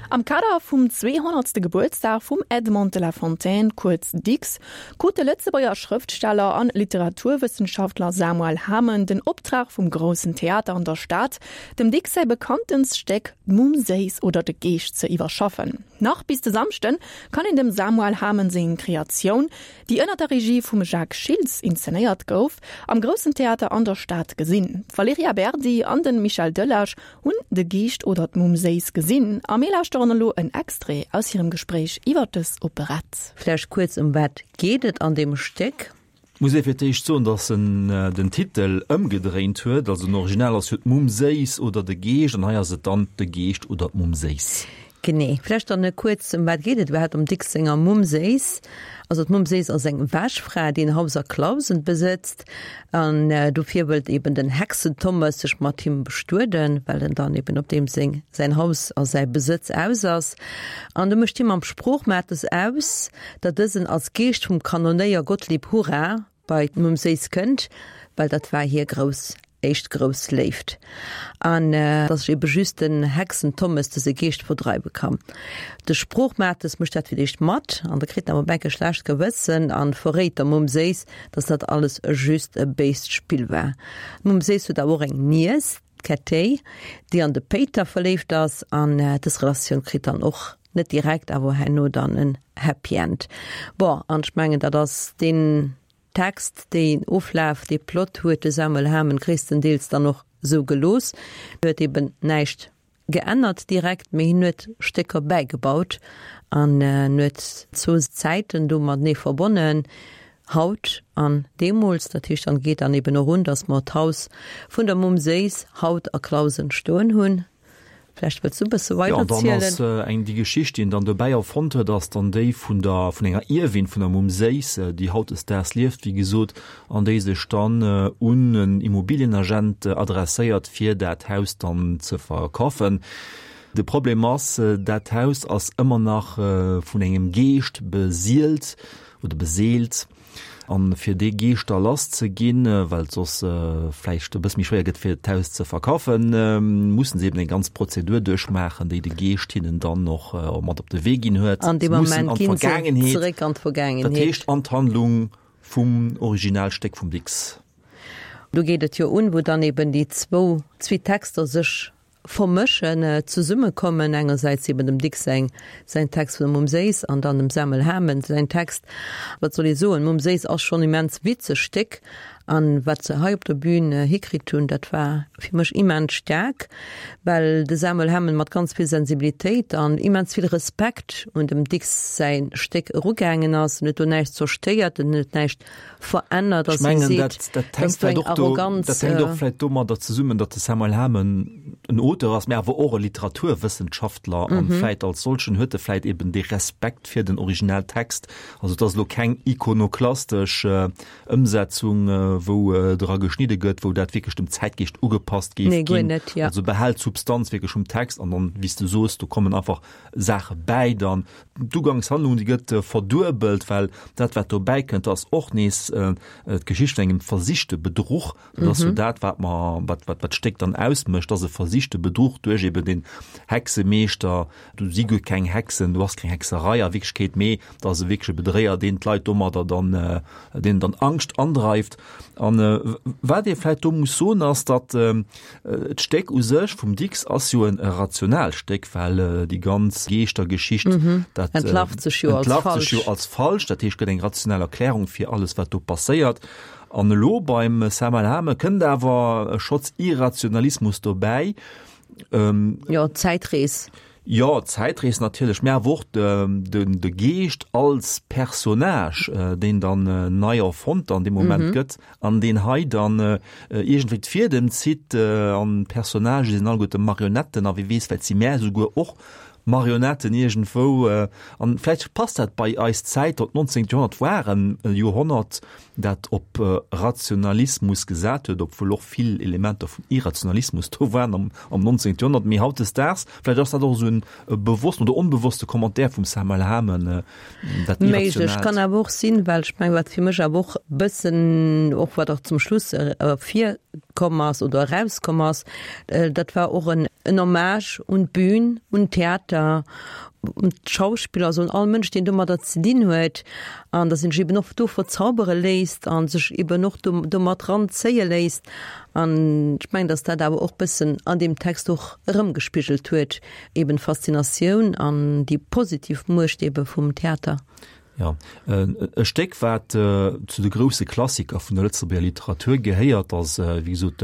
Am Kader vum 200. Gebuertsdag vum Edmond de La Fontaine, kuerz Dicks, krut de Lëtzebuerger Schrëftsteller an Literaturwëssenschaftler Samuel Hamen den Optrag vum Groussen Theater an der Stad, dem Dicks säi bekanntenst Stéck D'Mumm Séiss oder de Geescht ze iwwerschaffen. Nach bis de Samschden kann een dem Samuel Hamen seng Kreatioun, déi ënner der Regie vum Jacques Schiltz inszenéiert gouf, am Groussen Theater an der Stad gesinn. D'Valerija Berdi an de Michel Delage hunn De Geescht oder d'Mumm Séiss gesinn a mir lauschteren elo en Extrait aus hirem Gespréich iwwer dës Operett. Vläicht kuerz, Ëm wat geet et an deem Stéck? Muss ee fir d'éischt soen, datt en den Titel ëmgedréint huet. Also den Original ass jo d'Mumm Séiss oder de Geescht an hei ass et dann De Geescht oder d'Mumm Séiss. Genee. Vläicht dann kuerz, ëm wat geet et iwwerhaapt am Dicks senger Mumm Séiss? Also d'Mumm Séiss ass eng Wäschfra, déi en Haus a Clausen besëtzt an dofir wëllt eben den Hexentommes sech mat him bestueden, well en dann eben op deem seng säin Haus a säi Besëtz aus ass. An du mécht hie mam Sproochmates aus, datt dësen als Geescht vum Kanonéier Gottlieb Hurra bei d'Mumm Séiss kënnt, well dat war hir grouss éischt grouss Léift, an datt sech ebe just den Hexentommes dëse Geescht verdreiwe kann. De Sproochmates mécht dat fir d'éischt mat, an da kritt en awer op enk e schlecht Gewëssen an verréit der Mumm Séiss, datt dat alles just e béist Spill war. D'Mumm Séiss huet awer och eng Niess, d'Kättéi, déi an de Péiter verléift ass, an dës Relatioun kritt dann och net direkt, awer herno dann en Happy End. Bon, an ech mengen, dat ass deen Text, deen Oflaf, dee Plot huet de Samuel Hamen gréisstendeels dann och esou gelooss. Hien huet eben näischt geännert direkt, mee hien huet Stécker bäigebaut an en huet zwou Zäiten do matenee verbonnen, haut an deemools. Dat heescht, dann geet dann eben och un, datt mer d'Haus vun der Mumm Séiss haut a Clausen stoen hunn. Vläicht wëlls du e bësse weider zielen. Jo, an dann ass eng, déi Geschicht, déi en dann dobäi erfonnt huet, ass dann déi vun der, vun enger Ierwin vun der Mumm Séiss, déi hautdesdaags lieft, wéi gesot, an déi sech dann un en Immobilienagent adresséiert, fir dat Haus dann ze verkafen. De Problem ass, dat Haus ass ëmmer nach vun engem Geescht besielt oder beseelt. An fir dee Geescht da lass ze ginn, well et soss vläicht e bësse méi schwéier gëtt fir d'Haus ze verkafen, mussen se eben eng ganz Prozedur duerchmaachen, déi de Geescht hinnen dann och mat op de Wee ginn huet. An deem Moment ginn se zeréck an d'Vergaangenheet. Dat heescht an d'Handlung vum Originalstéck vum Dicks. Do geet et jo un, wou dann eben déi zwou, zwee Texter sech Vermëschen, zesummekommen, engersäits eben dem Dicks säin säin Text vun der Mumm Séiss an dann dem Samuel Hamen säin Text. Wat soll ee soen, Mumm Séiss ass schonn immens witzeg Stéck an wat se hei op der Bühn hikritt hunn, dat war fir mech immens staark, well de Samuel Hamen mat ganz vill Sensibilitéit an immens vill Respekt un dem Dicks säi Stéck erugaangen ass. En huet do näischt zerstéiert, en huet näischt verännert, Ech mengen, dat, dat hänkt vläicht och do, dat hänkt och vläicht domadder zesummen, datt de Samuel Hamen en Auteur ass, mä awer och e Literaturwëssenschaftler an vläicht als solchen huet e vläicht eben dee Respekt fir den Originaltext. Also et ass elo keng ikonoklastesch Ëmsetzung, wou dra geschnidde gëtt, wou dat wierklech dem Zäitgeescht ugepasst géif ginn. Nee, guer net, ja. Also behält d'Substanz wierklech vum Text an dann, wéi s de soos, do kommen einfach Saache bäi dann. D'Ugangshandlung, déi gëtt verduebelt, well dat, wat dobäi kënnt, ass och nees d'Geschicht vun engem versichte Bedruch. Dat ass jo dat, wat mer, wat, wat, wat d'Stéck dann ausmécht, ass e versichte Bedruch duerch eben den Hexemeeschter. Do si guer keng Hexen, do ass keng Hexerei a Wierklechkeet, mee dat ass e wierkleche Bedréier, deen d'Leit domadder dann, deenen dann Angscht andreift. An wat ee vläicht do muss soen, ass, datt d'Stéck u sech vum Dicks ass jo en rationaalt Stéck, well déi ganz Geeschtergeschicht, dat entlarvt sech jo als entlarvt sech jo als falsch. Dat heescht, gëtt eng rational Erklärung fir alles, wat do passéiert. An elo beim Samuel Hamen kënnt awer e Schotz Irrationalismus dobäi. Jo, d'Zäitrees. Jo, d'Zäitrees natierlech, mä awer och de Geescht als Personnage, deen dann nei erfonnt an deem Moment gëtt an deen hei dann iergendwéi d'Fiedem zitt an d'Personnagë sinn alleguerte Marionetten a wie weess, vläicht si mär esouguer och Marionetten iergendwou. An vläicht passt dat bei eis Zäit, dat 19. Joerhonnert war e Joerhonnert, dat op Rationalismus gesat huet, obwuel och vill Elementer vun Irrationalismus do waren am, am 19. Joerhonnert, mee hautdesdaags, vläicht ass dat och esou en bewossten oder onbewosste Commentaire vum Samuel Hamen, dat Méiglech, Irrationaalt. kann awer och sinn, well ech mengen, wat fir mech awer och bëssen, och wat och zum Schluss ervirkënnt. komm ass oder erauskomm ass, dat war och en Hommage un d'Bün, un d'Theater, un d'Schauspiller, also un all Mënsch, deen domadder ze dinn huet an datt een sech eben och do verzaubere léisst a sech eben och do domat ranzéie léisst. An ech mengen, datt dat awer och bëssen an deem Text och erëmgespigelt huet, eben d'Faszinatioun an déi positiv Muecht ebe vum Theater. Jo, e Stéck, wat zu de grousse Klassiker vun der Lëtzebuerger Literatur gehéiert, ass wéi gesot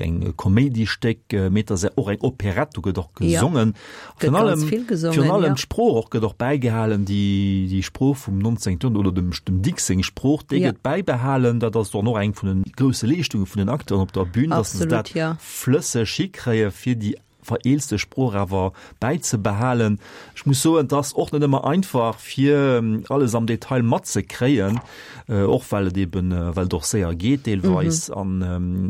eng Koméidiestéck, mee et ass och eng Operett, do gëtt och gesongen. Virun allem, virun allem d'Sprooch och gëtt och bäigehalen, déi, déi Sprooch vum 19. Joerhonnert oder dem, dem Dicks seng Sprooch, déi gëtt bäibehalen. Dat ass dann och eng vun de grousse Leeschtunge vun den Acteuren op der Bühn, datt se dat flësseg hikréie fir déi vereelzte Sprooch awer bäizebehalen. Ech muss soen, et ass och net ëmmer einfach fir alles am Detail matzekréien, och well et eben, well et och séier geet deelweis an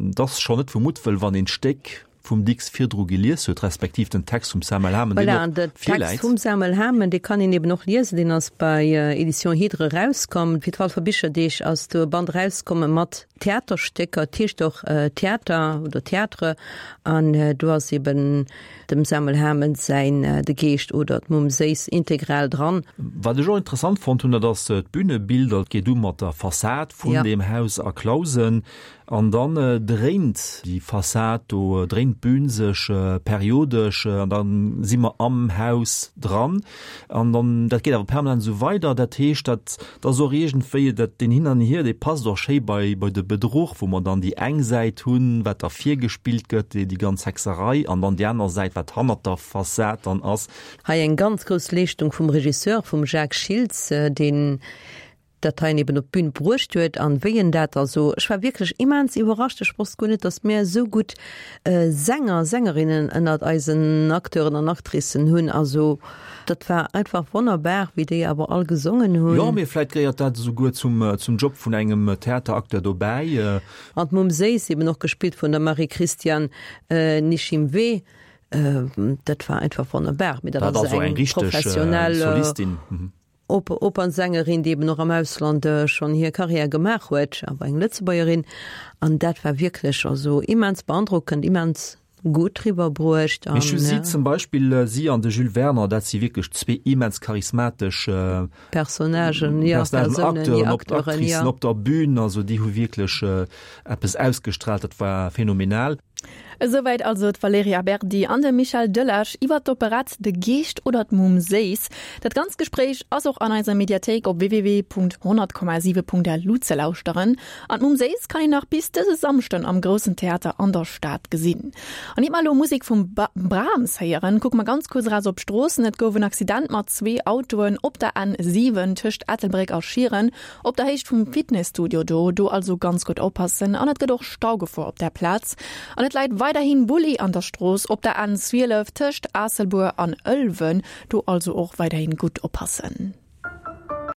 et ass schonn net vu Muttwëll, wann een d'Stéck vum Dicks virdru gelies huet, respektiv den Text vum Samuel Hamen, deen Voilà, an och den Text virläit. vum Samuel Hamen, dee kann een eben och liesen, deen ass bei Editions Hydre erauskomm. Fir d'Walfer Bicherdeeg ass do e Band erauskomme mat Theaterstécker, et heescht och Theater oder Théâtre, an do ass eben dem Samuel Hamen säin De Geescht oder d'Mumm Séiss integral dran. Wat ech och interessant fonnt hunn, dat ass d'Bünebilder. Et geet u mat der Fassad vun deem Haus a Clausen an dann dréint déi Fassad do, dréint d'Bün sech periodesch an da si mer am Haus dran. An dann, dat geet awer permanent esou weider. Dat heescht, dat ass och iergendwéi, dat, deen Hin an Hier, dee passt och schéi bei, bei de Bedruch, wou mer dann déi eng Säit hunn, wat da virgespillt gëtt, déi, déi ganz Hexerei, an dann déi aner Säit, wat hannert der Fassad dann ass. Hei eng ganz grouss Leeschtung vum Regisseur, vum Jacques Schiltz, deen dat heien eben op d'Bün bruecht huet an wéi en dat also, ech war wierklech immens iwwerrascht, ech wosst guer net, datt mir esou gutt Sänger, Sängerinnen ënnert eisen Acteuren an Actricen hunn, also dat war einfach wonnerbar, wéi déi awer all gesongen hunn. Jo, mee vläit gehéiert dat esouguer zum, zum Job vun engem Theateracteur dobäi. An d'Mumm Séiss, eben och gespillt vun der Marie-Christiane Nishimwe, dat war einfach wonnerbar, mee dat ass eng professionell Solistin. Opernsängerin, déi eben och am Ausland schonn hir Karriär gemaach huet, awer eng Lëtzebuergerin. An dat war wierklech also immens beandrockend, immens gutt riwwerbruecht. Mee ech hu si zum Beispill, si an de Jules Werner, dat si wierklech zwee immens charismatesch Personnagen, jo, Persounen, jo, Acteuren, Actricen op der Bühn. Also déi hu wierklech eppes ausgestrahlt, dat war phänomenal. Esouwäit also d'Valerija Berdi an de Michel Delage iwwer d'Operett De Geescht oder d'Mumm Séiss. Dat ganzt Gespréich ass och an eiser Mediathéik op www.100,7.lu ze lauschteren. An d'Mumm Séiss kann een nach bis dëse Samschden am Groussen Theater an der Stad gesinn. An iert mer elo Musek vum Brahms héieren, kucke mer ganz kuerz eraus op d'Stroossen. Et gouf en Accident mat zwee Autoen op der N7 tëscht Ettelbréck a Schieren. Op der Héicht vum Fitnesstudio do, do also ganz gutt oppassen an et gëtt och Staugefor op där Plaz. An et läit weiderhin Bulli an der Strooss op der N 12 tëscht Aasselbuer an Ëlwen, do also och weiderhin gutt oppassen.